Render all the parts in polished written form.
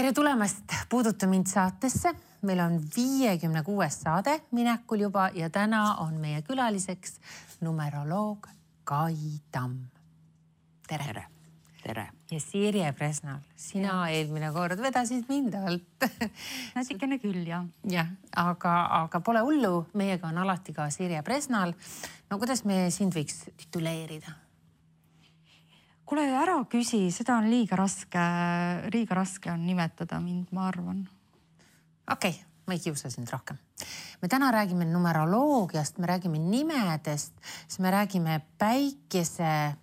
Tere tulemast Puuduta mind saatesse. Meil on 56. saade minekul juba ja täna on meie külaliseks numeroloog Kai Tamm. Tere. Tere. Ja Sirje Presnal, sina eelmine kord vedasid mind alt. Natikene küll, jah. Jah, aga pole hullu. Meiega on alati ka Sirje Presnal. No kuidas me sind võiks tituleerida? Kuule, ära küsi, seda on liiga raske on nimetada mind, ma arvan. Okei, ma ei kiusa sind rohkem. Me täna räägime numeroloogiast, me räägime nimedest, siis me räägime päikesepäevadest.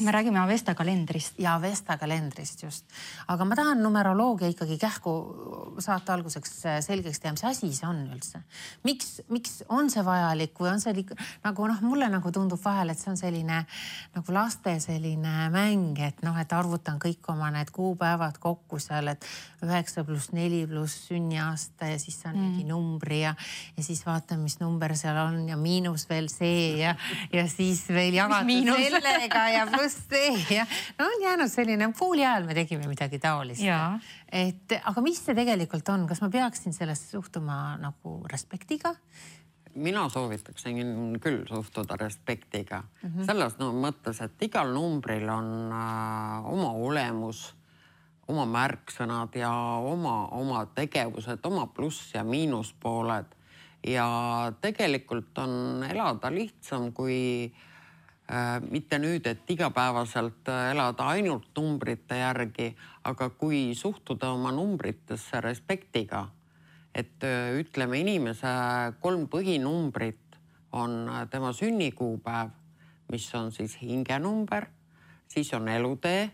Me räägime Avesta kalendrist. Ja Avesta kalendrist just. Aga ma tahan numeroloogia ikkagi kähku saate alguseks selgeks teha, mis asi see on üldse. Miks on see vajalik või on see nagu mulle nagu tundub vahel, et see on selline nagu laste selline mäng, et et arvutan kõik oma need kuupäevad kokku seal, et 9 + 4 + sünniaasta ja siis on mingi numbri ja siis vaatan, mis number seal on ja miinus veel see ja siis veel jagatud sellega ja pluss see ja on jäänud selline, pooli ajal me tegime midagi taolist. Aga mis see tegelikult on? Kas ma peaksin sellest suhtuma nagu respektiga? Mina soovitaksin küll suhtuda respektiga. Selles mõttes, et igal numbril on oma olemus, oma märksõnad ja oma tegevused, oma pluss- ja miinuspooled. Ja tegelikult on elada lihtsam, kui mitte nüüd, et igapäevaselt elada ainult numbrite järgi, aga kui suhtuda oma numbritesse respektiga, et ütleme inimese 3 põhinumbrit on tema sünnikuupäev, mis on siis hingenumber, siis on elutee,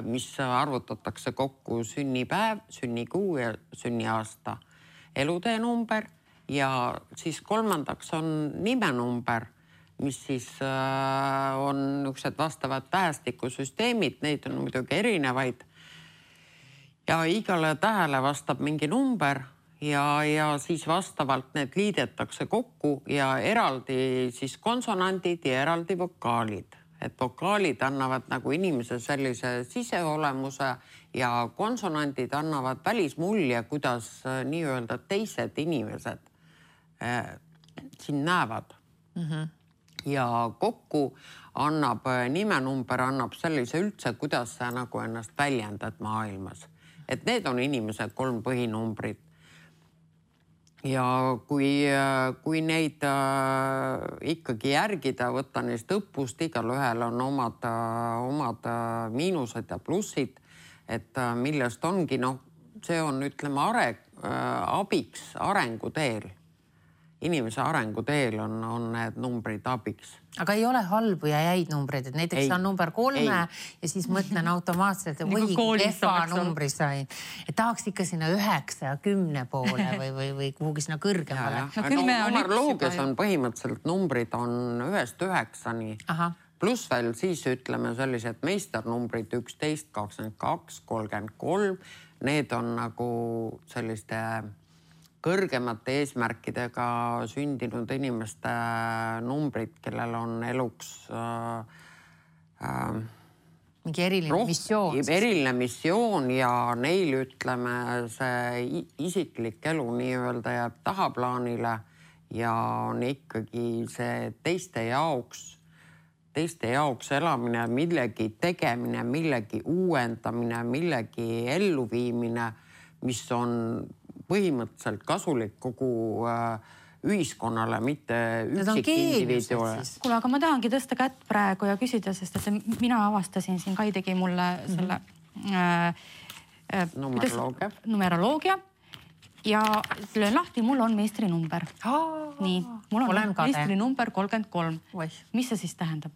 mis arvutatakse kokku sünnipäev, sünnikuu ja sünniaasta, elutee number ja siis kolmandaks on nimenumber, mis siis on niisugused vastavad tähestikusüsteemid, neid on muidugi erinevaid. Ja igale tähele vastab mingi number ja siis vastavalt need liidetakse kokku ja eraldi siis konsonandid ja eraldi vokaalid. Et vokaalid annavad nagu inimese sellise siseolemuse ja konsonandid annavad välismulje, kuidas nii-öelda teised inimesed siin näevad. Ja kokku annab nimenumber sellise üldse, kuidas sa nagu ennast väljendad maailmas. Et need on inimese 3 põhinumbrid. Ja kui neid ikkagi järgida, võtta neist õppust, igal ühel on omad miinused ja plussid, et millest ongi, see on, ütleme, abiks arenguteel. Inimese arenguteel on need numbrid abiks. Aga ei ole halbu ja jäid numbreid, et näiteks on number 3 ja siis mõtlen automaatselt, et või kefa numbri sain. Et tahaks ikka sinna 9 ja 10 poole või kuhugi sinna kõrgemale. Numeroloogias on põhimõtteliselt numbrid on 1-st 9-ni. Pluss veel siis ütleme sellised meisternumbrid 11, 22, 33. Need on nagu selliste kõrgemate eesmärkidega sündinud inimeste numbrid, kellel on eluks mingi eriline missioon. Eriline missioon ja neil, ütleme, see isiklik elu nii-öelda jääb tahaplaanile ja on ikkagi see teiste jaoks elamine, millegi tegemine, millegi uuendamine, millegi elluviimine, mis on põhimõtteliselt kasulik kogu ühiskonnale, mitte üksik individuale. Kuule, aga ma tahangi tõsta kätt praegu ja küsida, sest et mina avastasin siin, Kai tegi mulle selle numeroloogia ja löön lahti, mul on meistrinumber. Nii, mul on meistrinumber 33. Mis see siis tähendab?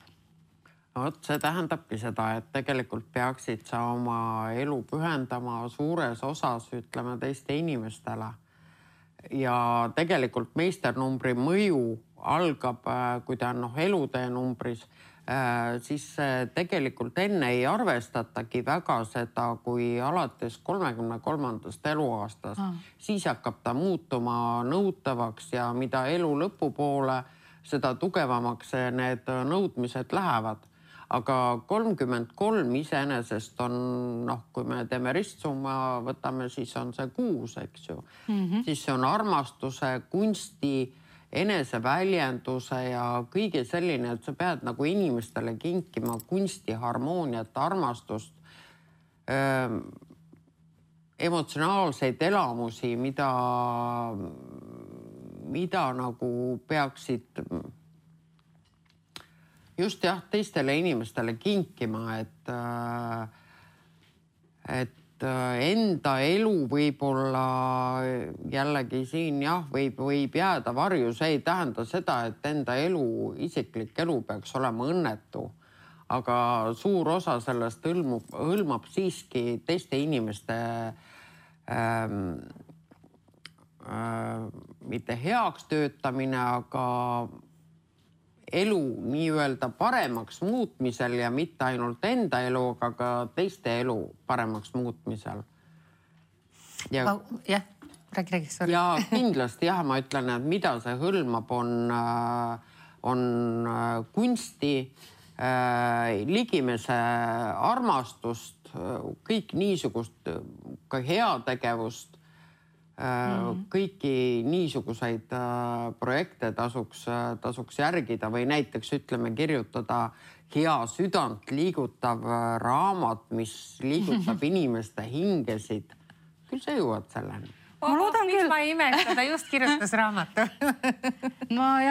See tähendabki seda, et tegelikult peaksid sa oma elu pühendama suures osas, ütleme, teiste inimestele. Ja tegelikult meisternumbri mõju algab, kui ta on elutee numbris, siis tegelikult enne ei arvestatagi väga seda, kui alates 33. eluaastast. Siis hakkab ta muutuma nõutavaks ja mida elu lõpupoole, seda tugevamaks need nõudmised lähevad. aga 33 iseenesest on, kui me teeme ristsumma, võtame, siis on see 6, eks ju. Siis see on armastuse, kunsti, eneseväljenduse ja kõige selline, et sa pead nagu inimestele kinkima kunsti, harmooniat, armastust, emotsionaalseid elamusi, mida nagu peaksid just teistele inimestele kinkima, et enda elu võib-olla jällegi siin võib jääda varju, see ei tähenda seda, et enda elu, isiklik elu peaks olema õnnetu. Aga suur osa sellest hõlmab siiski teiste inimeste mitte heaks töötamine, aga elu nii-öelda paremaks muutmisel ja mitte ainult enda elu, aga ka teiste elu paremaks muutmisel. Räägi, sorry. Ja kindlasti ma ütlen, et mida see hõlmab, on kunsti, ligimese armastust, kõik niisugust ka heategevust, kõiki niisuguseid projekte tasuks järgida või näiteks ütleme kirjutada hea südant liigutav raamat, mis liigutab inimeste hingesid. Küll sa jõuad selleni. Ma loodan küll. Ma ei imesta, ta just kirjutas raamatu. ma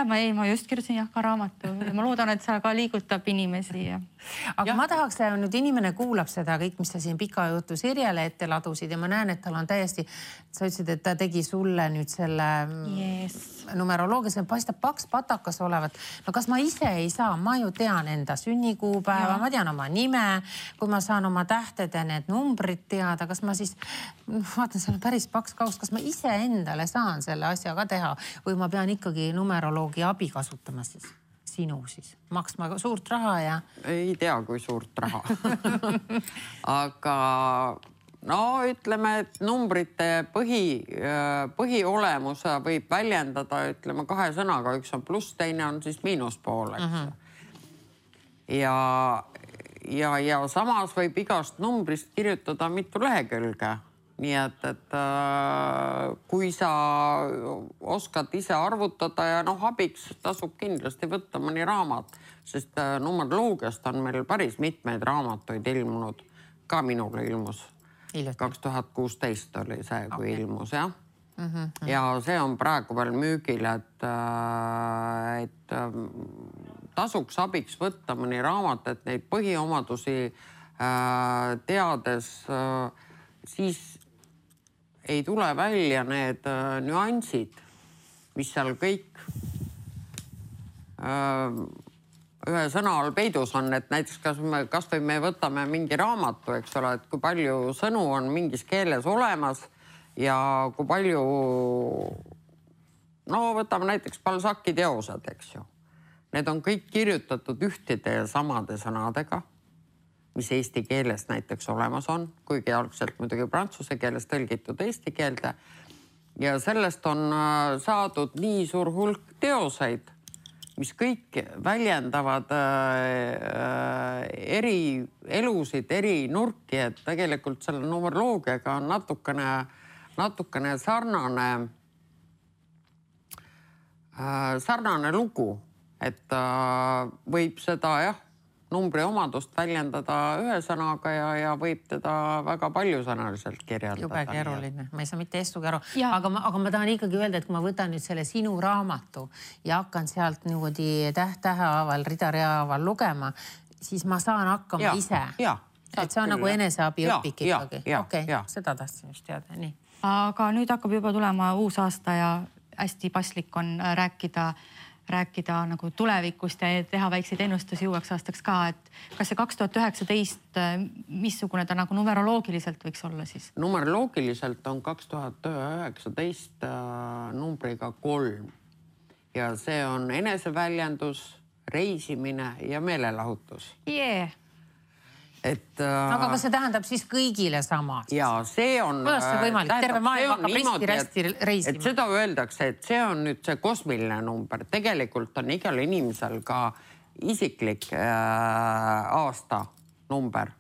just kirjutasin ka raamatu. Ma loodan, et sa ka liigutab inimesi. Aga ma tahaks, nüüd inimene kuulab seda kõik, mis sa siin pika jutu Sirjele ette ladusid ja ma näen, et tal on täiesti, sa ütlesid, et ta tegi sulle nüüd selle numeroloogia, see paistab paks patakas olevat. No kas ma ise ei saa, ma ju tean enda sünnikuupäeva, ma tean oma nime, kui ma saan oma tähted ja need numbrid teada, kas ma siis, vaatan, see on päris paks kaust, kas ma ise endale saan selle asja ka teha või ma pean ikkagi numeroloogi abi kasutama siis? Sinu siis, maksma suurt raha ja... Ei tea, kui suurt raha. Aga ütleme, et numbrite põhiolemuse võib väljendada, ütleme 2 sõnaga, üks on pluss, teine on siis miinuspool, eks. Ja samas võib igast numbrist kirjutada mitu lehekülge. Nii et kui sa oskad ise arvutada ja abiks tasub kindlasti võtta mõni raamat, sest numeroloogiast on meil päris mitmeid raamatuid ilmunud. Ka minule ilmus. 2016 oli see, kui ilmus, jah. Ja see on praegu veel müügil, et tasuks abiks võtta mõni raamat, et neid põhiomadusi teades siis ei tule välja need nüansid, mis seal kõik ühe sõna all peidus on, et näiteks kas või me võtame mingi raamatu, eks ole, et kui palju sõnu on mingis keeles olemas ja kui palju, võtame näiteks Balzaci teosed, eks ju. Need on kõik kirjutatud ühtide ja samade sõnadega, mis eesti keeles näiteks olemas on, kuigi algselt muidugi prantsuse keeles tõlgitud eesti keelde. Ja sellest on saadud nii suur hulk teoseid, mis kõik väljendavad eri elusid, eri nurki, et tegelikult selle numeroloogiaga on natukene sarnane lugu, et võib seda numbri omadust väljendada ühe sõnaga ja võib teda väga paljusõnaliselt kirjeldada. Jube keeruline, ma ei saa mitte estugi aru. Aga ma tahan ikkagi öelda, et kui ma võtan nüüd selle sinu raamatu ja hakkan sealt niimoodi tähehaaval, rida-reahaaval lugema, siis ma saan hakkama ise. Et see on nagu eneseabi õpik ikkagi. Okei, seda tahtsin just teada. Nii. Aga nüüd hakkab juba tulema uus aasta ja hästi paslik on rääkida nagu tulevikust ja teha väikseid ennustusi uueks aastaks ka, et kas see 2019, missugune ta nagu numeroloogiliselt võiks olla siis? Numeroloogiliselt on 2019 numbriga 3 ja see on eneseväljendus, reisimine ja meelelahutus. Aga kas see tähendab siis kõigile sama? Ja see on... Kuidas see võimalik? Terve maailm hakkab risti reisima. Seda öeldakse, et see on nüüd see kosmiline number. Tegelikult on igal inimesel ka isiklik aastanumber.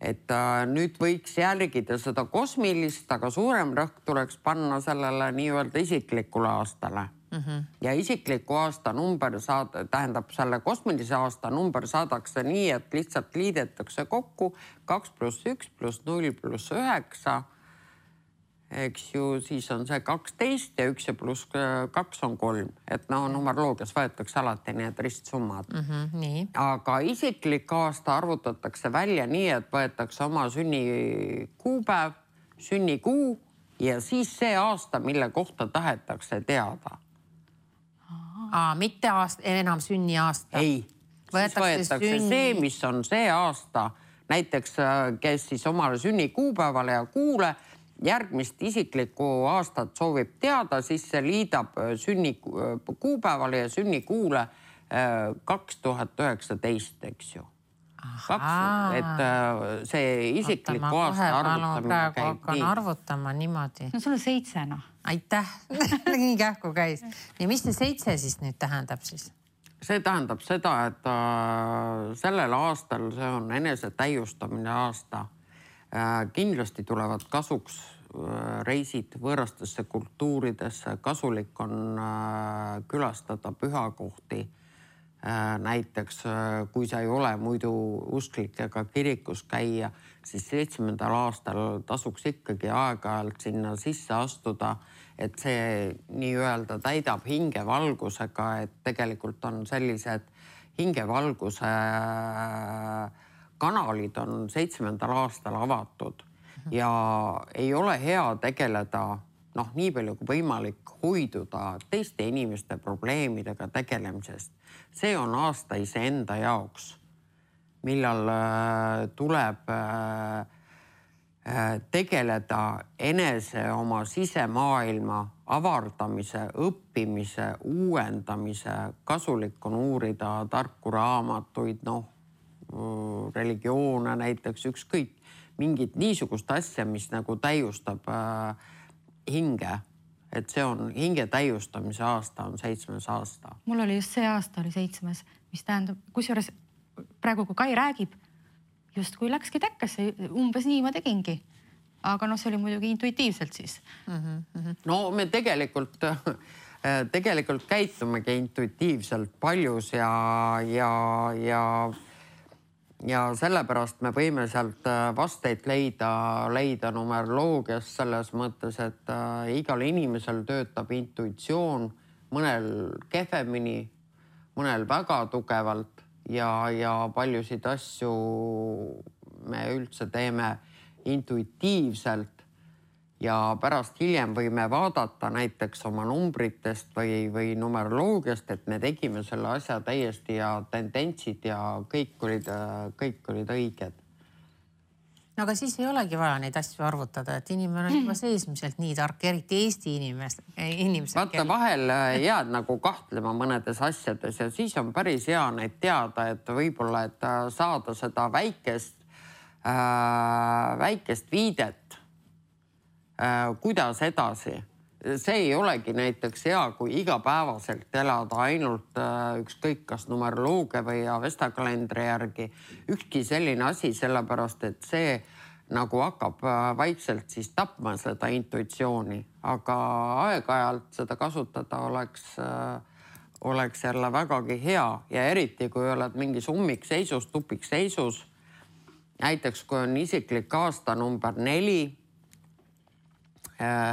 Et nüüd võiks järgida seda kosmilist, aga suurem rõhk tuleks panna sellele nii-öelda isiklikule aastale. Ja isikliku aasta number tähendab selle kosmilise aasta number saadakse nii, et lihtsalt liidetakse kokku 2 + 1 + 0 + 9. Eks ju, siis on see 12 ja 1 ja +2 on 3. Et numeroloogias võetakse alati need ristsummad. Nii. Aga isiklik aasta arvutatakse välja nii, et võetakse oma sünnikuupäev, sünnikuu ja siis see aasta, mille kohta tahetakse teada. Mitte enam sünniaasta. Ei, siis võetakse see, mis on see aasta. Näiteks, kes siis omale sünnikuupäevale ja kuule järgmist isiklikku aastat soovib teada, siis see liidab sünnikuupäevale ja sünnikuule 2019, eks ju. Et see isikliku aasta arvutamine käib hakkan arvutama niimoodi. No sul on 7. Aitäh, nii kähku käis. Ja mis see 7 siis nüüd tähendab siis? See tähendab seda, et sellel aastal see on enese täiustamine aasta. Kindlasti tulevad kasuks reisid võõrastesse kultuuridesse. Kasulik on külastada pühakohti. Näiteks, kui sa ei ole muidu usklik ega kirikus käia, siis 7. aastal tasuks ikkagi aeg-ajalt sinna sisse astuda, et see nii-öelda täidab hingevalgusega, et tegelikult on sellised hingevalguse kanalid on 7. aastal avatud ja ei ole hea tegeleda, nii palju kui võimalik hoiduda teiste inimeste probleemidega tegelemisest. See on aasta iseenda jaoks, millal tuleb tegeleda enese oma sisemaailma avardamise, õppimise, uuendamise. Kasulik on uurida tarku raamatuid, religioone näiteks, ükskõik mingit niisugust asja, mis nagu täiustab hinge. Et see on hinge täiustamise aasta, on 7. aasta. Mul oli just see aasta oli 7, mis tähendab, kusjuures praegu kui Kai räägib, just kui läkski täkkesse, umbes nii ma tegingi. Aga see oli muidugi intuitiivselt siis. No me tegelikult käitumegi intuitiivselt paljus ja sellepärast me võime sealt vasteid leida numeroloogias selles mõttes, et igal inimesel töötab intuitsioon, mõnel kehvemini, mõnel väga tugevalt ja paljusid asju me üldse teeme intuitiivselt ja pärast hiljem võime vaadata näiteks oma numbritest või numeroloogiast, et me tegime selle asja täiesti ja tendentsid ja kõik olid õiged. No aga siis ei olegi vaja neid asju arvutada, et inimene on juba seesmiselt nii tark, eriti Eesti inimesed. Vaata, vahel jääd nagu kahtlema mõnedes asjades ja siis on päris hea neid teada, et võib-olla, et saada seda väikest viidet, kuidas edasi. See ei olegi näiteks hea, kui igapäevaselt elada ainult ükskõik kas numeroloogia või Avesta-kalendri järgi. Ükski selline asi, sellepärast, et see nagu hakkab vaikselt siis tapma seda intuitsiooni. Aga aeg-ajalt seda kasutada oleks jälle vägagi hea ja eriti, kui oled mingis ummikseisus, tupikseisus. Näiteks, kui on isiklik aasta number 4,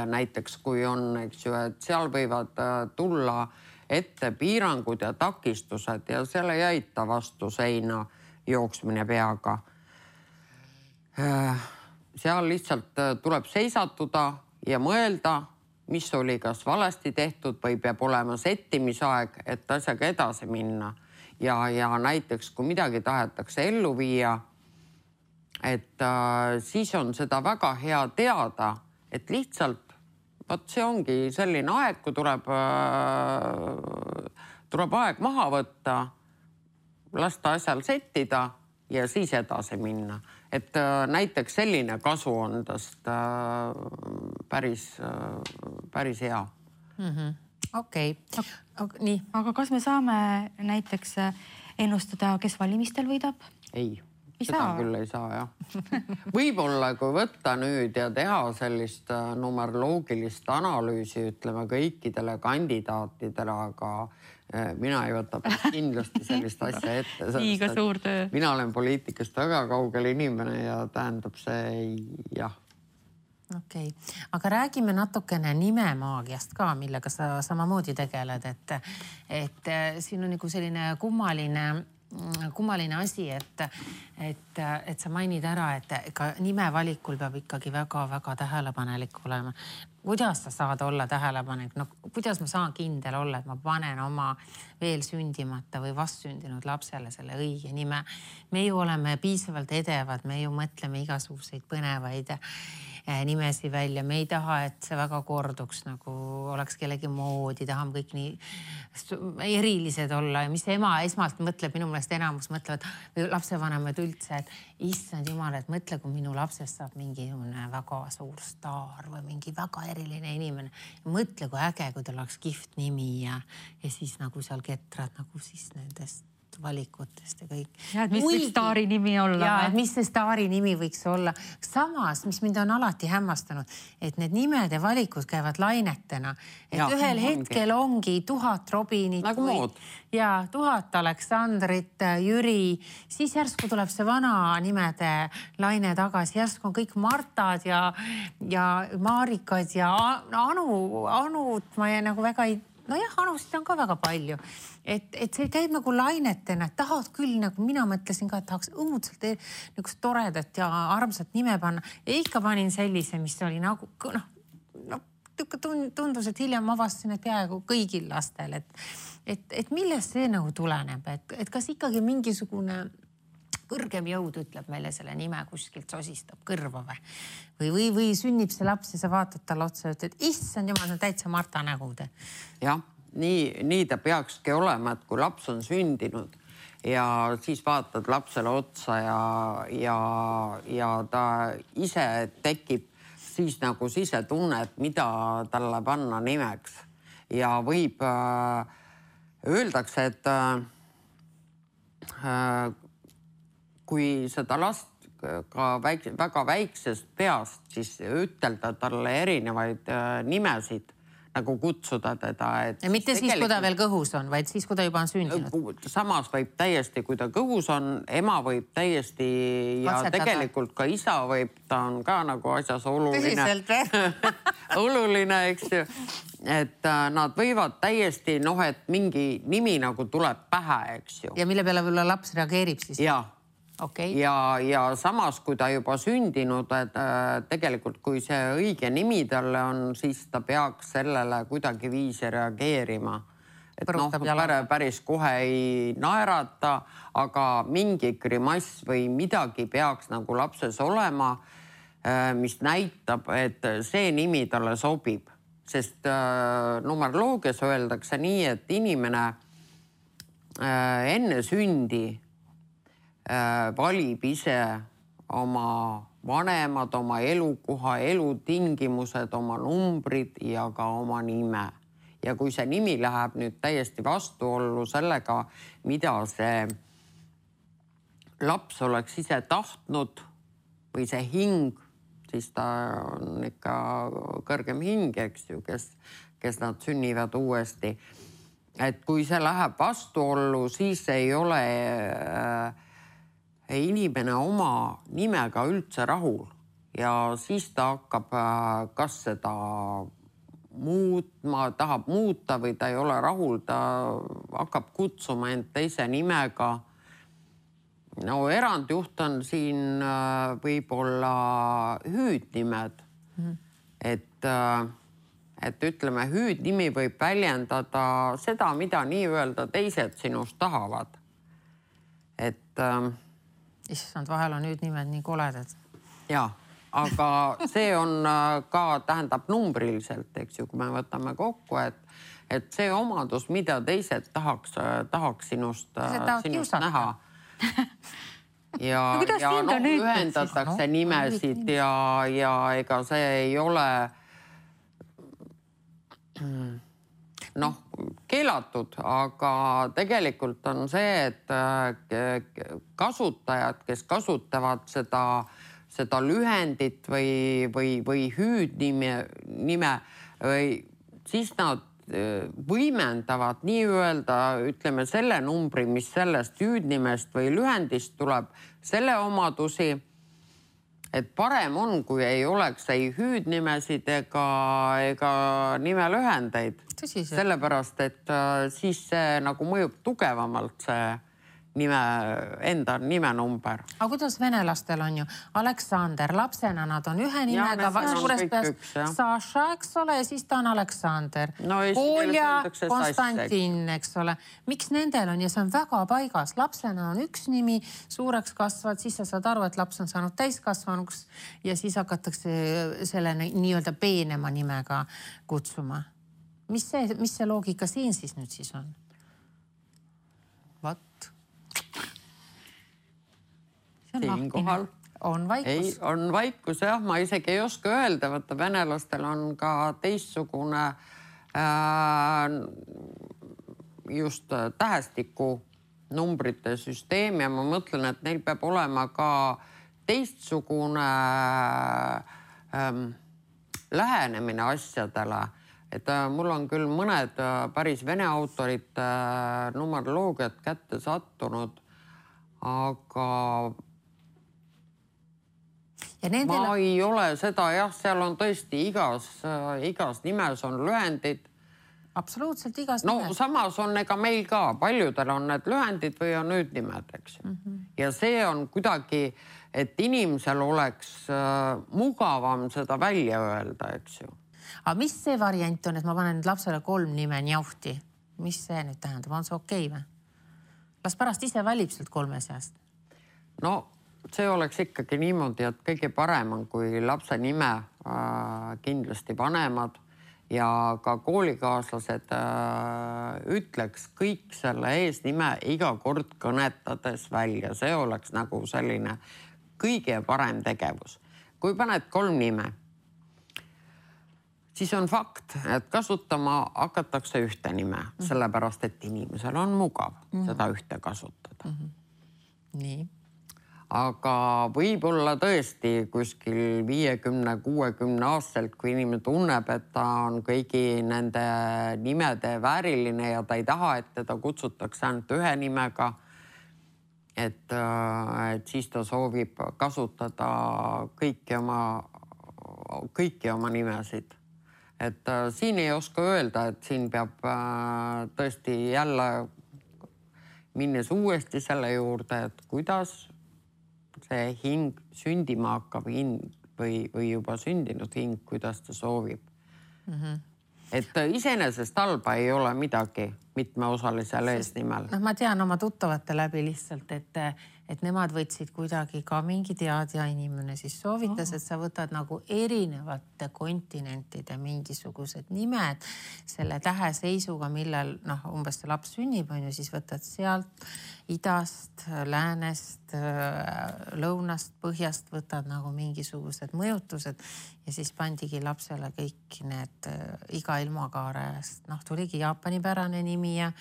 näiteks kui on, eks ju, et seal võivad tulla ette piirangud ja takistused ja selle ei aita vastu seina jooksmine peaga. Seal lihtsalt tuleb seisatuda ja mõelda, mis oli kas valesti tehtud või peab olema settimisaeg, et asjaga edasi minna. Ja näiteks, kui midagi tahetakse ellu viia, et siis on seda väga hea teada, et lihtsalt, see ongi selline aeg, kui tuleb aeg maha võtta, lasta asjal settida ja siis edasi minna. Et näiteks selline kasu on tast päris hea. Okei. Nii. Aga kas me saame näiteks ennustada, kes valimistel võidab? Ei. Seda küll ei saa, jah. Võib-olla, kui võtta nüüd ja teha sellist numeroloogilist analüüsi, ütleme kõikidele kandidaatidele, aga mina ei võta kindlasti sellist asja ette. Liiga suur töö. Mina olen poliitikast väga kaugel inimene ja tähendab see jah. Okei. Aga räägime natukene nimemaagiast ka, millega sa samamoodi tegeled, et siin on nagu selline kummaline asi, et sa mainid ära, et ka nime valikul peab ikkagi väga-väga tähelepanelik olema. Kuidas sa saad olla tähelepanelik? No, kuidas ma saan kindel olla, et ma panen oma veel sündimata või vastsündinud lapsele selle õige nime? Me ju oleme piisavalt edevad, me ju mõtleme igasuguseid põnevaid nimesi välja. Me ei taha, et see väga korduks, nagu oleks kellegi moodi, tahame kõik nii erilised olla. Ja mis ema esmalt mõtleb, minu meelest enamus mõtlevad, või lapsevanemad üldse, et issand jumal, et mõtle, kui minu lapsest saab mingi väga suur staar või mingi väga eriline inimene. Ja mõtle, kui äge, kui tal oleks kihvt nimi ja siis nagu seal ketrad nagu siis nendest valikutest ja kõik. Ja, et mis võiks staari nimi olla? Ja, et mis see staari nimi võiks olla. Samas, mis mind on alati hämmastanud, et need nimede valikud käivad lainetena. Et ühel hetkel ongi 1000 Robinit nagu ja 1000 Aleksandrit, Jüri, siis järsku tuleb see vana nimede laine tagasi, järsku on kõik Martad ja Marikad ja Anut ma nagu väga ei... Nojah, anusid on ka väga palju. Et see käib nagu lainetena, et tahad küll, nagu mina mõtlesin ka, et tahaks õudselt nagu toredat ja armsat nime panna. Ja ikka panin sellise, mis oli nagu, tundus, et hiljem avastasin, et peaaegu kõigil lastel. Et millest see nagu tuleneb? Et kas ikkagi mingisugune kõrgem jõud ütleb meile selle nime kuskilt sosistab kõrva või sünnib see laps ja sa vaatad talle otsa ja ütled, issand jumal, see on täitsa Marta nägu. Jah, nii ta peakski olema, et kui laps on sündinud ja siis vaatad lapsele otsa ja ta ise tekib siis nagu sisetunne, et mida talle panna nimeks. Ja võib öeldakse, et kui seda last ka väga väiksest peast, siis ütelda talle erinevaid nimesid, nagu kutsuda teda. Ja mitte siis, kui ta veel kõhus on, vaid siis, kui ta juba on sündinud. Samas võib täiesti, kui ta kõhus on, ema võib täiesti ja tegelikult ka isa võib, ta on ka nagu asjas oluline. Tõsiselt või? Oluline, eks ju. Et nad võivad täiesti, et mingi nimi nagu tuleb pähe, eks ju. Ja mille peale võib-olla laps reageerib siis? Jaa. Okay. Ja samas, kui ta juba sündinud, et tegelikult kui see õige nimi talle on, siis ta peaks sellele kuidagi viisi reageerima. Et päris kohe ei naerata, aga mingi grimass või midagi peaks nagu lapses olema, mis näitab, et see nimi talle sobib. Sest numeroloogias öeldakse nii, et inimene enne sündi valib ise oma vanemad, oma elukoha, elutingimused, oma numbrid ja ka oma nime. Ja kui see nimi läheb nüüd täiesti vastuollu sellega, mida see laps oleks ise tahtnud või see hing, siis ta on ikka kõrgem hing, eks ju, kes nad sünnivad uuesti. Et kui see läheb vastuollu, siis ei ole inimene oma nimega üldse rahul ja siis ta hakkab kas seda tahab muuta või ta ei ole rahul, ta hakkab kutsuma end teise nimega. No erandjuht on siin võib-olla hüüdnimed. Et ütleme, hüüdnimi võib väljendada seda, mida nii-öelda teised sinust tahavad. Issand, vahel on nüüd nimed nii koledad. Jaa, aga see on ka, tähendab numbriliselt, eks ju, kui me võtame kokku, et see omadus, mida teised tahaks sinust näha. Ja ühendatakse nimesid ja ega see ei ole... noh, keelatud, aga tegelikult on see, et kasutajad, kes kasutavad seda lühendit või hüüdnime või siis nad võimendavad nii-öelda, ütleme, selle numbri, mis sellest hüüdnimest või lühendist tuleb, selle omadusi, et parem on, kui ei oleks ei hüüdnimesid ega nimelühendeid. Sellepärast, et siis see nagu mõjub tugevamalt see enda nimenumber. Aga kuidas venelastel on ju? Aleksander, lapsena nad on ühe nimega, suures peas Saša, eks ole, ja siis ta on Aleksander. Kolja, Konstantin, eks ole. Miks nendel on ja see on väga paigas? Lapsena on üks nimi, suureks kasvad, siis sa saad aru, et laps on saanud täiskasvanuks ja siis hakatakse selle nii-öelda peenema nimega kutsuma. Mis see loogika siin siis nüüd siis on? Vat. Siinkohal on vaikus. Ei, on vaikus, jah. Ma isegi ei oska öelda, võtta venelastel on ka teistsugune just tähestiku numbrite süsteem ja ma mõtlen, et neil peab olema ka teistsugune lähenemine asjadele. Et mul on küll mõned päris vene autorid numeroloogiat kätte sattunud, aga ma ei ole seda, jah, seal on tõesti igas nimes on lühendid. Absoluutselt igas nimes. No samas on ega meil ka, paljudel on need lühendid või on hüüdnimed, eks ju. Ja see on kuidagi, et inimesel oleks mugavam seda välja öelda, eks ju. Aga mis see variant on, et ma panen nüüd lapsele 3 nime njauhti? Mis see nüüd tähendab? On see okei või? Las pärast ise valib sealt 3 seast. No see oleks ikkagi niimoodi, et kõige parem on, kui lapse nime kindlasti vanemad ja ka koolikaaslased ütleks kõik selle eesnime iga kord kõnetades välja. See oleks nagu selline kõige parem tegevus. Kui paned 3 nime, siis on fakt, et kasutama hakatakse ühte nime, sellepärast, et inimesel on mugav seda ühte kasutada. Nii. Aga võib-olla tõesti kuskil 50-60 aastalt, kui inimene tunneb, et ta on kõigi nende nimede vääriline ja ta ei taha, et teda kutsutakse ainult ühe nimega, et siis ta soovib kasutada kõiki oma nimesid. Et siin ei oska öelda, et siin peab tõesti jälle minnes uuesti selle juurde, et kuidas see hing sündima hakkab või juba sündinud hing, kuidas ta soovib. Et iseenesest halba ei ole midagi mitmeosalisel eesnimel. Ma tean oma tuttavate läbi lihtsalt, et nemad võtsid kuidagi ka mingi teadja inimene, siis soovitas, et sa võtad nagu erinevate kontinentide mingisugused nimed selle täheseisuga, millal umbes see laps sünnib, on ju, siis võtad sealt idast, läänest, lõunast, põhjast võtad nagu mingisugused mõjutused ja siis pandigi lapsele kõik need iga ilmakaarest. Tuligi Jaapani pärane nimi ja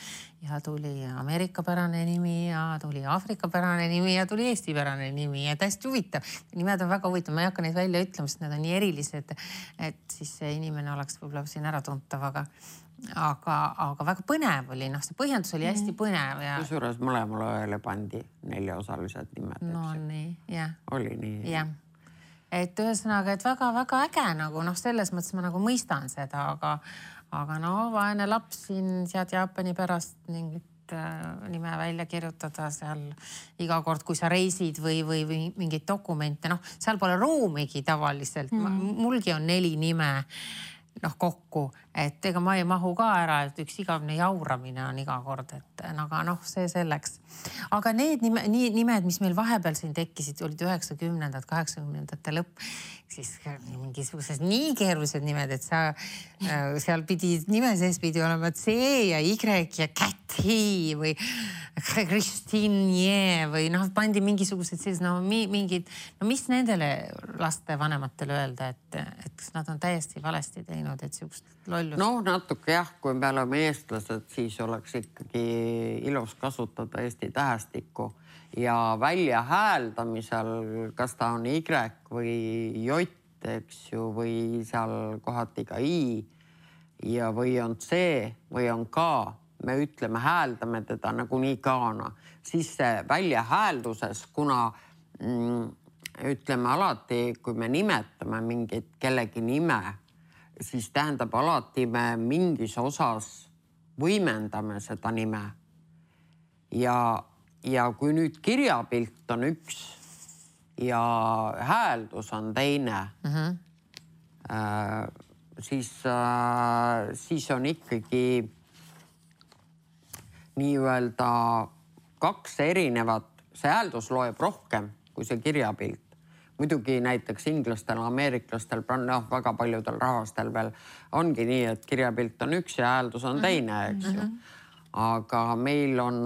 tuli Ameerika pärane nimi ja tuli Afrika pärane nimi ja tuli Eesti pärane nimi ja hästi huvitav. Nimed on väga huvitav, ma ei hakka neid välja ütlema, sest need on nii erilised, et siis see inimene oleks võib-olla siin ära tuntav, aga väga põnev oli, see põhjendus oli hästi põnev. Kusjuures mõlemale õele pandi 4-osalised nimed. No nii, jah. Oli nii. Jah. Et ühesõnaga, et väga-väga äge nagu, selles mõttes ma nagu mõistan seda, aga vaene laps siin sead Jaapani pärast mingit nime välja kirjutada seal iga kord, kui sa reisid või mingid dokumente, seal pole ruumigi tavaliselt. Mulgi on 4 nime kokku, et ega ma ei mahu ka ära, et üks igavne jauramine on iga kord, et aga see selleks. Aga need nimed, mis meil vahepeal siin tekkisid, olid 90-ndad, 80-ndate lõpp, siis mingisugused nii keerulised nimed, et seal nime sees pidi olema C ja Y ja Käthi või Kristinje või pandi mingisugused mingid, mis nendele laste vanematele öelda, et nad on täiesti valesti teinud, et siukest lollust. Noh, natuke jah, kui me oleme eestlased, siis oleks ikkagi ilus kasutada Eesti tähestikku ja välja hääldamisel, kas ta on Y või J, eks ju, või seal kohati ka I ja või on C või on K. Me ütleme, hääldame teda nagunii K-na, siis see välja häälduses, kuna ütleme alati, kui me nimetame mingit kellegi nime, siis tähendab alati me mingis osas võimendame seda nime. Ja kui nüüd kirjapilt on üks ja hääldus on teine, siis on ikkagi nii-öelda kaks erinevat, see hääldus loeb rohkem kui see kirjapilt. Muidugi näiteks inglastel, ameeriklastel, väga paljudel rahvastel veel ongi nii, et kirjapilt on üks ja hääldus on teine, eks ju. Aga meil on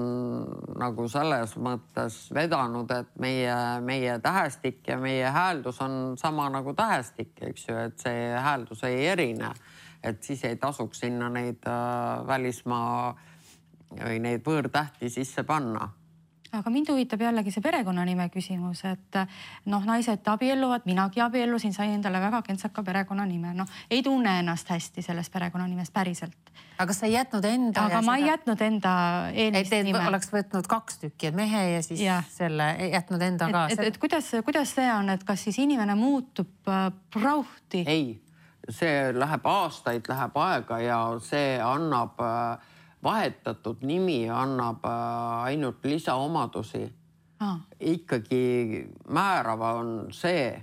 nagu selles mõttes vedanud, et meie tähestik ja meie hääldus on sama nagu tähestik, eks ju, et see hääldus ei erine. Et siis ei tasuks sinna neid välismaa või neid võõrtähti sisse panna. Aga mind huvitab jällegi see perekonnanime küsimus, et naised abielluvad, minagi abiellusin, sain endale väga kentsaka perekonnanime. Ei tunne ennast hästi sellest perekonnanimest päriselt. Aga sa ei jätnud enda... Aga ma ei jätnud enda eelist nime. Oleks võtnud 2 tükki, et mehe ja siis selle jätnud enda ka. Et kuidas see on, et kas siis inimene muutub prauhti? Ei, see läheb aastaid, läheb aega ja see annab... Vahetatud nimi annab ainult lisaomadusi. Ikkagi määrava on see,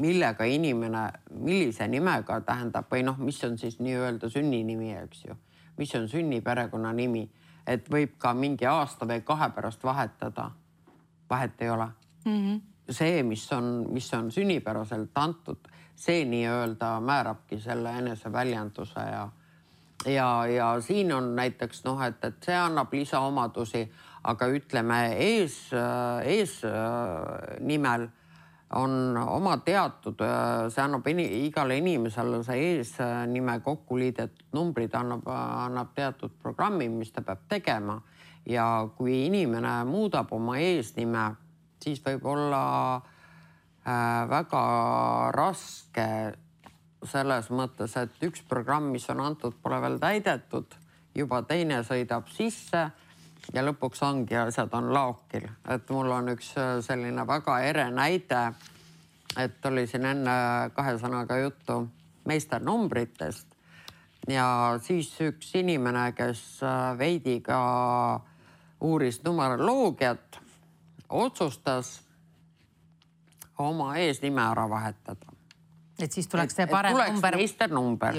millega inimene, millise nimega tähendab või mis on siis nii-öelda sünninimi, eks ju. Mis on sünniperekonna nimi, et võib ka mingi aasta või 2 pärast vahetada. Vahet ei ole. See, mis on sünnipäraselt antud, see nii-öelda määrabki selle eneseväljenduse ja siin on näiteks, et see annab lisaomadusi, aga ütleme ees nimel on oma teatud, see annab igale inimesele see eesnime kokkuliidetud numbrid annab teatud programmi, mis ta peab tegema ja kui inimene muudab oma eesnime, siis võib olla väga raske selles mõttes, et üks programm, mis on antud, pole veel täidetud, juba teine sõidab sisse ja lõpuks ongi asjad on laokil. Et mul on üks selline väga ere näide, et oli siin enne 2 sõnaga juttu meisternumbritest ja siis üks inimene, kes veidi ka uuris numeroloogiat, otsustas oma eesnime ära vahetada. Et siis tuleks see parem number. Meisternumber.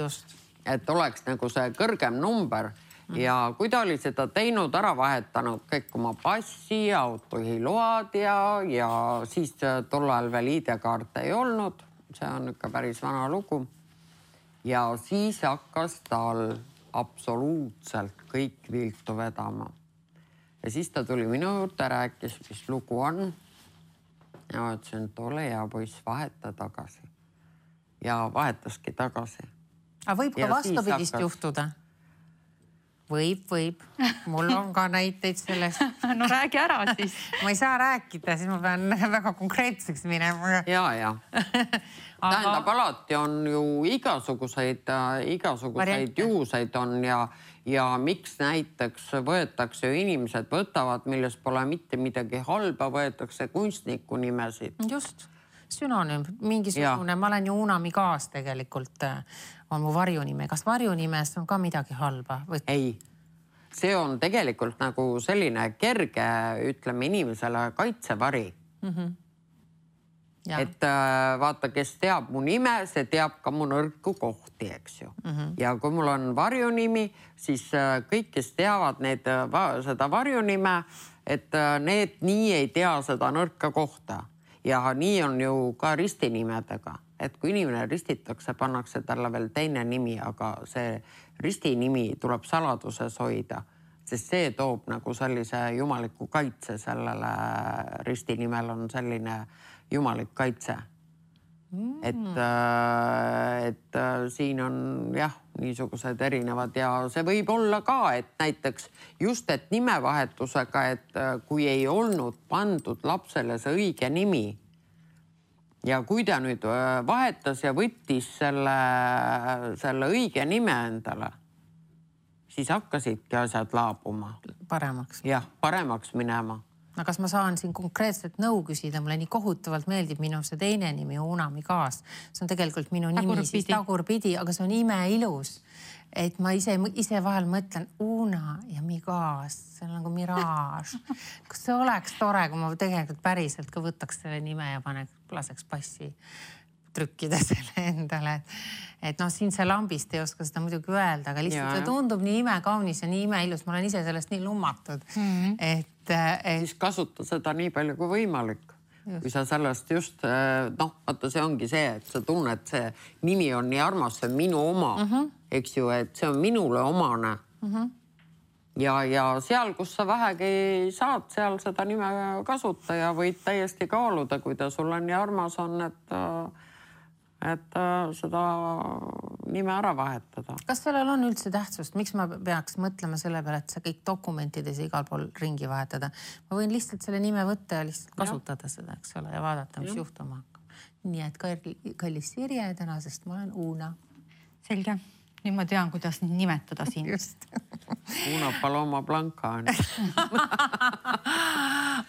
Et oleks nagu see kõrgem number. Ja kui ta oli seda teinud, ära vahetanud kõik oma passi, autojuhiload ja siis tol ajal veel ID-kaarte ei olnud. See on ikka päris vana lugu. Ja siis hakkas tal absoluutselt kõik viltu vedama. Ja siis ta tuli minu juurde, rääkis, mis lugu on. Ja ütlesin, et ole hea poiss, vaheta tagasi. Ja vahetaski tagasi. Aga võib ka vastupidist juhtuda? Võib. Mul on ka näiteid sellest. No räägi ära siis. Ma ei saa rääkida, siis ma pean väga konkreetseks minema. Ja. Tähendab, alati on ju igasuguseid juhuseid on ja miks näiteks võetakse ju inimesed võtavad, milles pole mitte midagi halba, võetakse kunstniku nimesid. Just. Sünonüüm, mingisugune, ma olen ju Unami kaas tegelikult, on mu varjunime. Kas varjunimes on ka midagi halba? Ei, see on tegelikult nagu selline kerge, ütleme inimesele kaitsevari. Et vaata, kes teab mu nime, see teab ka mu nõrku kohti, eks ju. Ja kui mul on varjunimi, siis kõik, kes teavad seda varjunime, et need nii ei tea seda nõrka kohta. Ja nii on ju ka ristinimedega, et kui inimene ristitakse, pannakse talle veel teine nimi, aga see ristinimi tuleb saladuses hoida, sest see toob nagu sellise jumaliku kaitse sellele ristinimel on selline jumalik kaitse. et siin on jah, niisugused erinevad ja see võib olla ka, et näiteks just, et nimevahetusega, et kui ei olnud pandud lapsele see õige nimi ja kui ta nüüd vahetas ja võttis selle õige nime endale, siis hakkasidki asjad laabuma. Paremaks. Jah, paremaks minema. No kas ma saan siin konkreetselt nõu küsida? Mulle nii kohutavalt meeldib minu see teine nimi, Una Migaas. See on tegelikult minu nimi siis tagurpidi, aga see on imeilus. Et ma ise vahel mõtlen Una ja Migaas, see on nagu miraaž. Kas see oleks tore, kui ma tegelikult päriselt ka võtaks selle nime ja laseks passi trükkida selle endale. Et noh, siin see lambist ei oska seda muidugi öelda, aga lihtsalt see tundub nii imekaunis ja nii imeilus. Ma olen ise sellest nii lummatud. Siis kasuta seda nii palju kui võimalik. Kui sa sellest just, vaata see ongi see, et sa tunned, see nimi on nii armas, see on minu oma, eks ju, et see on minule omane. Ja seal, kus sa vähegi saad, seal seda nime kasuta ja võid täiesti kaaluda, kui ta sulle nii armas on, et seda nime ära vahetada. Kas sellel on üldse tähtsust? Miks ma peaks mõtlema selle peale, et sa kõik dokumentides igal pool ringi vahetada? Ma võin lihtsalt selle nime võtta ja lihtsalt kasutada seda, eks ole, ja vaadata, mis juhtuma hakkab. Nii et kallis Sirje, tänasest ma olen Una. Selge. Nüüd ma tean, kuidas nimetada siin. Just. Una Paloma Blanca on.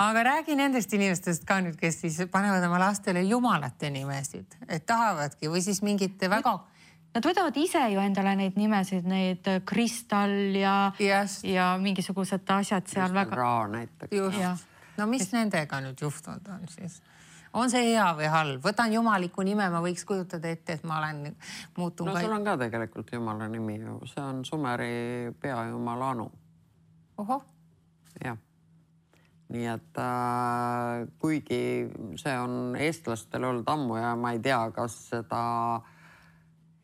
Aga räägi nendest inimestest ka nüüd, kes siis panevad oma lastele jumalate nimesid. Et tahavadki või siis mingid väga... Nad võtavad ise ju endale neid nimesid, neid Kristal ja mingisugused asjad seal väga... Raa näiteks. Just. No mis nendega nüüd juhtunud on siis? On see hea või halb? Võtan jumaliku nime, ma võiks kujutada ette, et ma olen muutun... No sul on ka tegelikult jumala nimi ju. See on Sumeri peajumala Anu. Oho. Jah. Nii et kuigi see on eestlastel olnud ammu ja ma ei tea, kas seda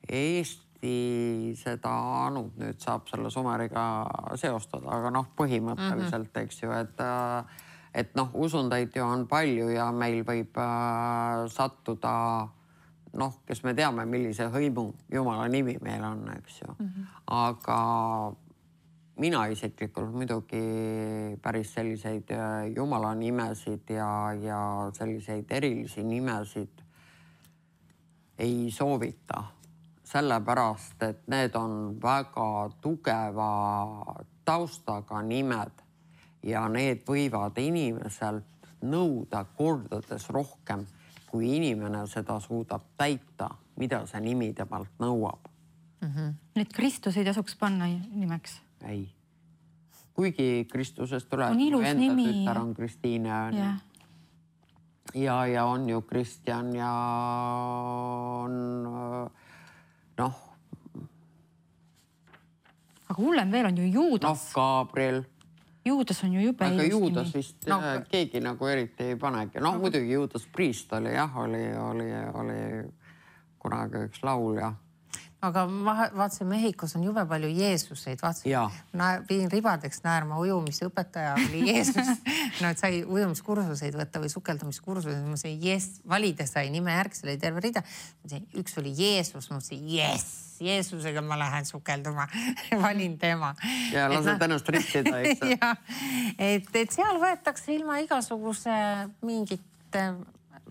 Eesti seda Anut nüüd saab selle Sumeriga seostada, aga põhimõtteliselt, eks ju, et usundaid ju on palju ja meil võib sattuda, kes me teame, millise hõimu jumala nimi meil on, eks ju. Aga mina isiklikult muidugi päris selliseid jumala nimesid ja selliseid erilisi nimesid ei soovita. Sellepärast, et need on väga tugeva taustaga nimed. Ja need võivad inimeselt nõuda kordades rohkem, kui inimene seda suudab täita, mida see nimi temalt nõuab. Need Kristus ei tasuks panna nimeks? Ei. Kuigi Kristusest tuleb, enda tütar on Kristiine. Ja on ju Kristjan ja on Aga hullem veel on ju Juudas. Gabriel. Juudas on ju jube ilus nimi. Aga Juudas vist keegi nagu eriti ei panegi. Muidugi Juudas Priist oli kunagi üks laulja. Aga vaatasin, Mehhikos on jube palju Jeesuseid. Viin ribadeks näärma ujumisõpetaja oli Jeesus. Et sai ujumiskursuseid võtta või sukeldumiskursuseid. Ma sain valida sai nime järg, see oli terve rida. Üks oli Jeesus, ma mõtlesin, Jeesusega ma lähen sukelduma. Valin tema. Ja lased ennast ristida, eks? Et seal võetakse ilma igasuguse mingite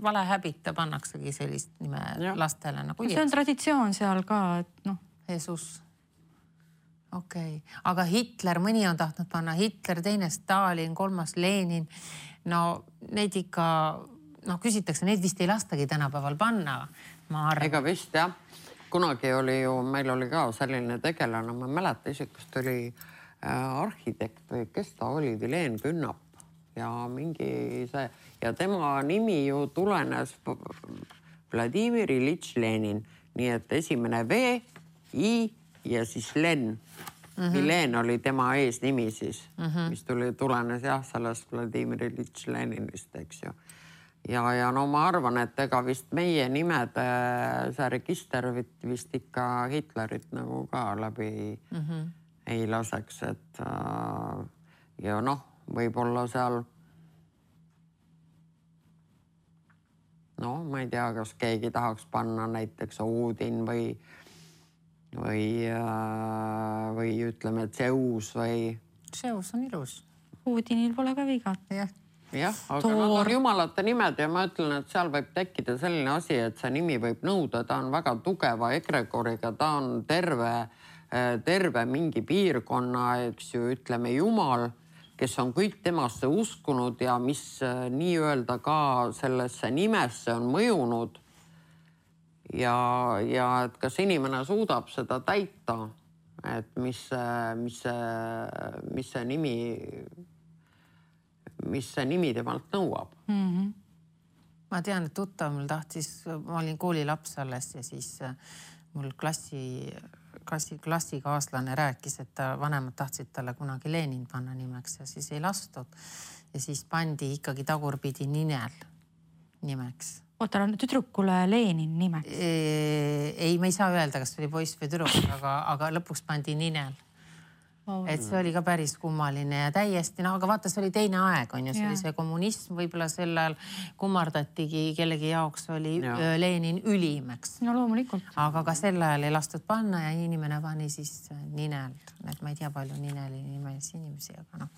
valehäbita pannaksegi sellist nime lastele nagu Jeesus. See on traditsioon seal ka, et Jeesus. Okei. Aga Hitler, mõni on tahtnud panna Hitler, teine Stalin, kolmas Lenin. Neid ikka, küsitakse, neid vist ei lastagi tänapäeval panna. Ega vist, jah. Kunagi oli ju, meil oli ka selline tegelane, ma mäleta isikust oli arhitekt või kes ta oli, Vileen Künnap ja mingi see ja tema nimi ju tulenes Vladimir Ilitš Lenin, nii et esimene V, I ja siis Len. Vileen oli tema eesnimi siis, mis tulenes sellest Vladimir Ilitš Leninist, eks ju. Ja ma arvan, et ega vist meie nimede see register vist ikka Hitlerit nagu ka läbi ei laseks, et ja võib-olla seal No, ma ei tea, kas keegi tahaks panna näiteks Oodin või ütleme Zeus või... Zeus on ilus. Oodinil pole ka viga. Jah, aga nad on jumalate nimed ja ma ütlen, et seal võib tekkida selline asi, et see nimi võib nõuda, ta on väga tugeva egregoriga, ta on terve mingi piirkonna, eks ju, ütleme jumal, kes on kõik temasse uskunud ja mis nii-öelda ka sellesse nimesse on mõjunud. Ja et kas inimene suudab seda täita, et mis see nimi temalt nõuab. Ma tean, et tuttav mul tahtis, ma olin koolilaps alles ja siis mul klassikaaslane rääkis, et vanemad tahtsid talle kunagi Lenin panna nimeks ja siis ei lastud. Ja siis pandi ikkagi tagurpidi Ninel nimeks. Oota, tüdrukule Lenin nimeks? Ei, ma ei saa öelda, kas oli poiss või tüdruk, aga lõpuks pandi Ninel. Et see oli ka päris kummaline ja täiesti, aga vaata, see oli teine aeg, on ju, see oli see kommunism, võib-olla sellel kummardatigi, kellegi jaoks oli Lenin ülim, eks. No loomulikult. Aga ka sel ajal ei lastud panna ja inimene pani siis Ninel. Et ma ei tea palju Nineli nimelisi inimesi, aga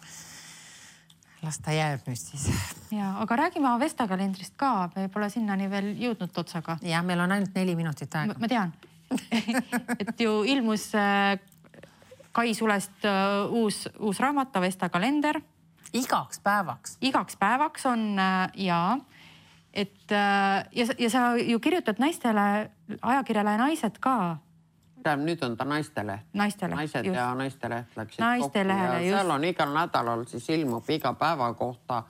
las ta jääb nüüd siis. Ja, aga räägime Avesta kalendrist ka, me pole sinnani veel jõudnud otsaga. Ja, meil on ainult 4 minutit aega. Ma tean, et ju ilmus Kai Sulest uus raamat, Avesta kalender. Igaks päevaks. Igaks päevaks on ja sa ju kirjutad naistele, ajakirjale Naised ka. Nüüd on ta naisteleht. Naised just. Ja naisteleht läksid Naistelehele, kokku ja seal on igal nädalal siis ilmub iga päeva kohta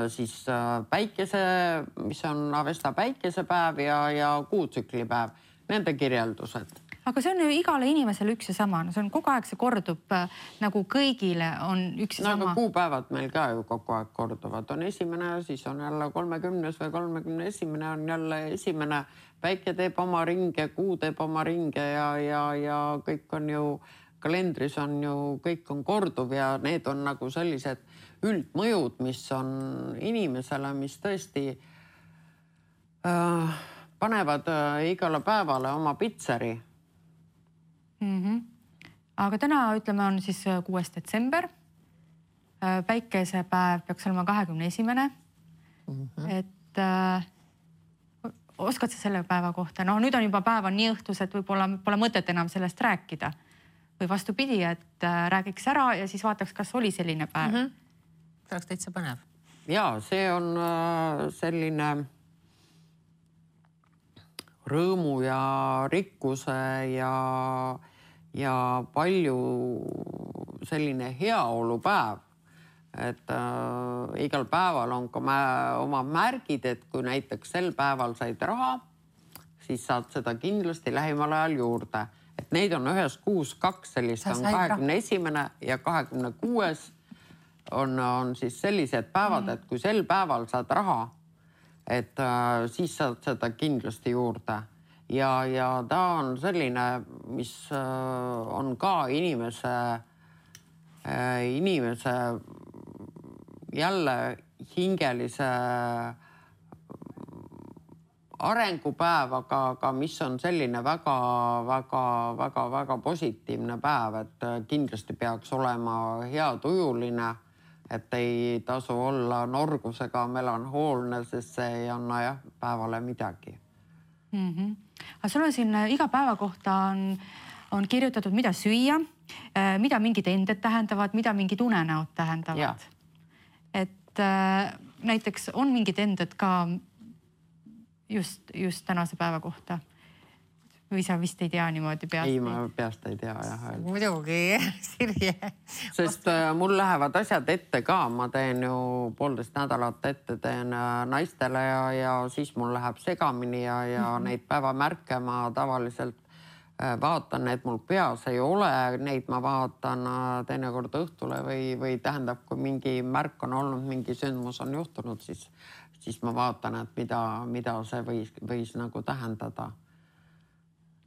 siis päikese, mis on Avesta päikesepäev ja kuutsüklipäev, nende kirjeldused. Aga see on ju igale inimesele üks ja sama. See on kogu aeg, see kordub nagu kõigile on üks ja sama. Aga kuupäevad meil ka ju kogu aeg korduvad. On esimene, siis on jälle 30. või 31. on jälle esimene. Päike teeb oma ringe, kuu teeb oma ringe ja kõik on ju, kalendris on ju, kõik on korduv ja need on nagu sellised üldmõjud, mis on inimesele, mis tõesti panevad igale päevale oma pitseri. Aga täna, ütleme, on siis 6. detsember. Päikesepäev peaks olema 21. Et oskad sa selle päeva kohta? No nüüd on juba päev on nii õhtus, et võib-olla pole mõtet enam sellest rääkida. Või vastupidi, et räägiks ära ja siis vaataks, kas oli selline päev. See oleks täitsa põnev. Ja, see on selline rõõmu ja rikkuse ja palju selline heaolupäev. Et igal päeval on ka oma märgid, et kui näiteks sel päeval said raha, siis saad seda kindlasti lähimal ajal juurde. Et neid on ühes kuus 2 sellist, on 21. ja 26. on siis sellised päevad, et kui sel päeval saad raha, et siis saad seda kindlasti juurde. Ja ta on selline, mis on ka inimese jälle hingelise arengupäev, aga mis on selline väga positiivne päev, et kindlasti peaks olema hea tujuline, et ei tasu olla norgusega melanhoolne, sest see ei anna päevale midagi. Aga sul on siin iga päeva kohta on kirjutatud, mida süüa, mida mingid ended tähendavad, mida mingid unenäod tähendavad. Et näiteks on mingid ended ka just tänase päeva kohta? Või sa vist ei tea niimoodi peast? Ei, ma peast ei tea, jah. Muidugi, Sirje. Sest mul lähevad asjad ette ka. Ma teen ju 1,5 nädalat ette teen naistele ja siis mul läheb segamini ja neid päevamärke ma tavaliselt vaatan, et mul peas ei ole. Neid ma vaatan teinekord õhtule või tähendab, kui mingi märk on olnud, mingi sündmus on juhtunud, siis ma vaatan, et mida see võis nagu tähendada.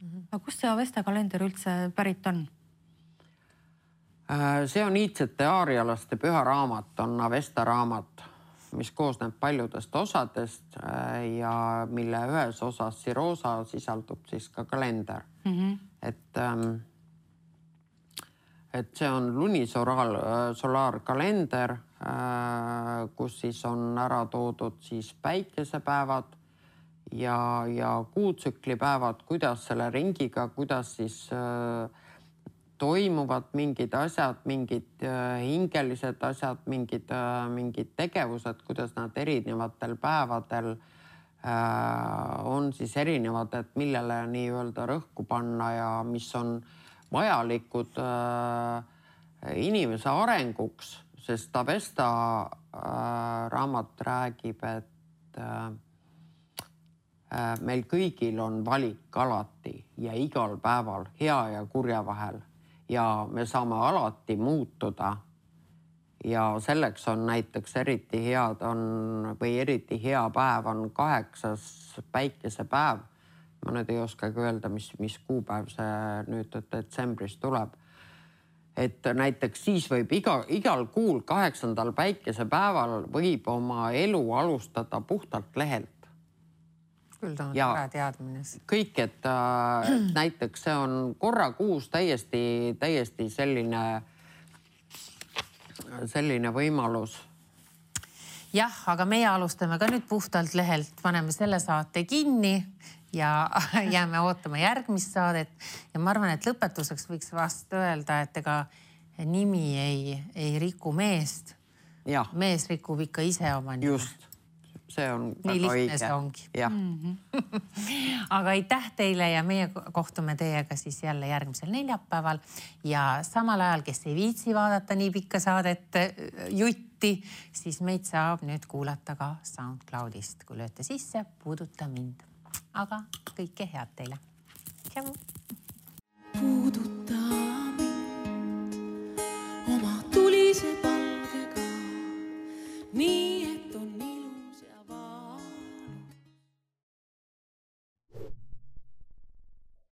Aga kust see Avesta kalender üldse pärit on? See on iidsete aarialaste püha raamat, on Avesta raamat. mis koosneb paljudest osadest ja mille ühes osas Sirosa sisaldub siis ka kalender. Et see on lunisolaarkalender, kus siis on ära toodud siis päikesepäevad ja kuutsüklipäevad, kuidas selle ringiga, kuidas siis toimuvad mingid asjad, mingid hingelised asjad, mingid tegevused, kuidas nad erinevatel päevadel on siis erinevad, et millele nii-öelda rõhku panna ja mis on vajalikud inimese arenguks, sest Avesta raamat räägib, et meil kõigil on valik alati ja igal päeval hea ja kurja vahel ja me saame alati muutuda. Ja selleks on näiteks eriti hea päev on 8. päikesepäev. Ma nüüd ei oskagi öelda, mis kuupäev see nüüd detsembris tuleb. Et näiteks siis võib igal kuul 8. päikesepäeval võib oma elu alustada puhtalt lehelt. Küll ta on ära teadmine. Kõik, et näiteks see on korra kuus täiesti selline võimalus. Jah, aga meie alustame ka nüüd puhtalt lehelt, paneme selle saate kinni ja jääme ootama järgmist saadet. Ja ma arvan, et lõpetuseks võiks vast öelda, et ega nimi ei riku meest. Ja. Mees rikub ikka ise oma nime. Just, see on nii lihtne see ongi. Ja. Aga aitäh teile ja meie kohtume teiega siis jälle järgmisel neljapäeval ja samal ajal, kes ei viitsi vaadata nii pikka saadet jutti, siis meid saab nüüd kuulata ka SoundCloudist, kui lööte sisse, puuduta mind. Aga kõike head teile. Tšau! Puuduta.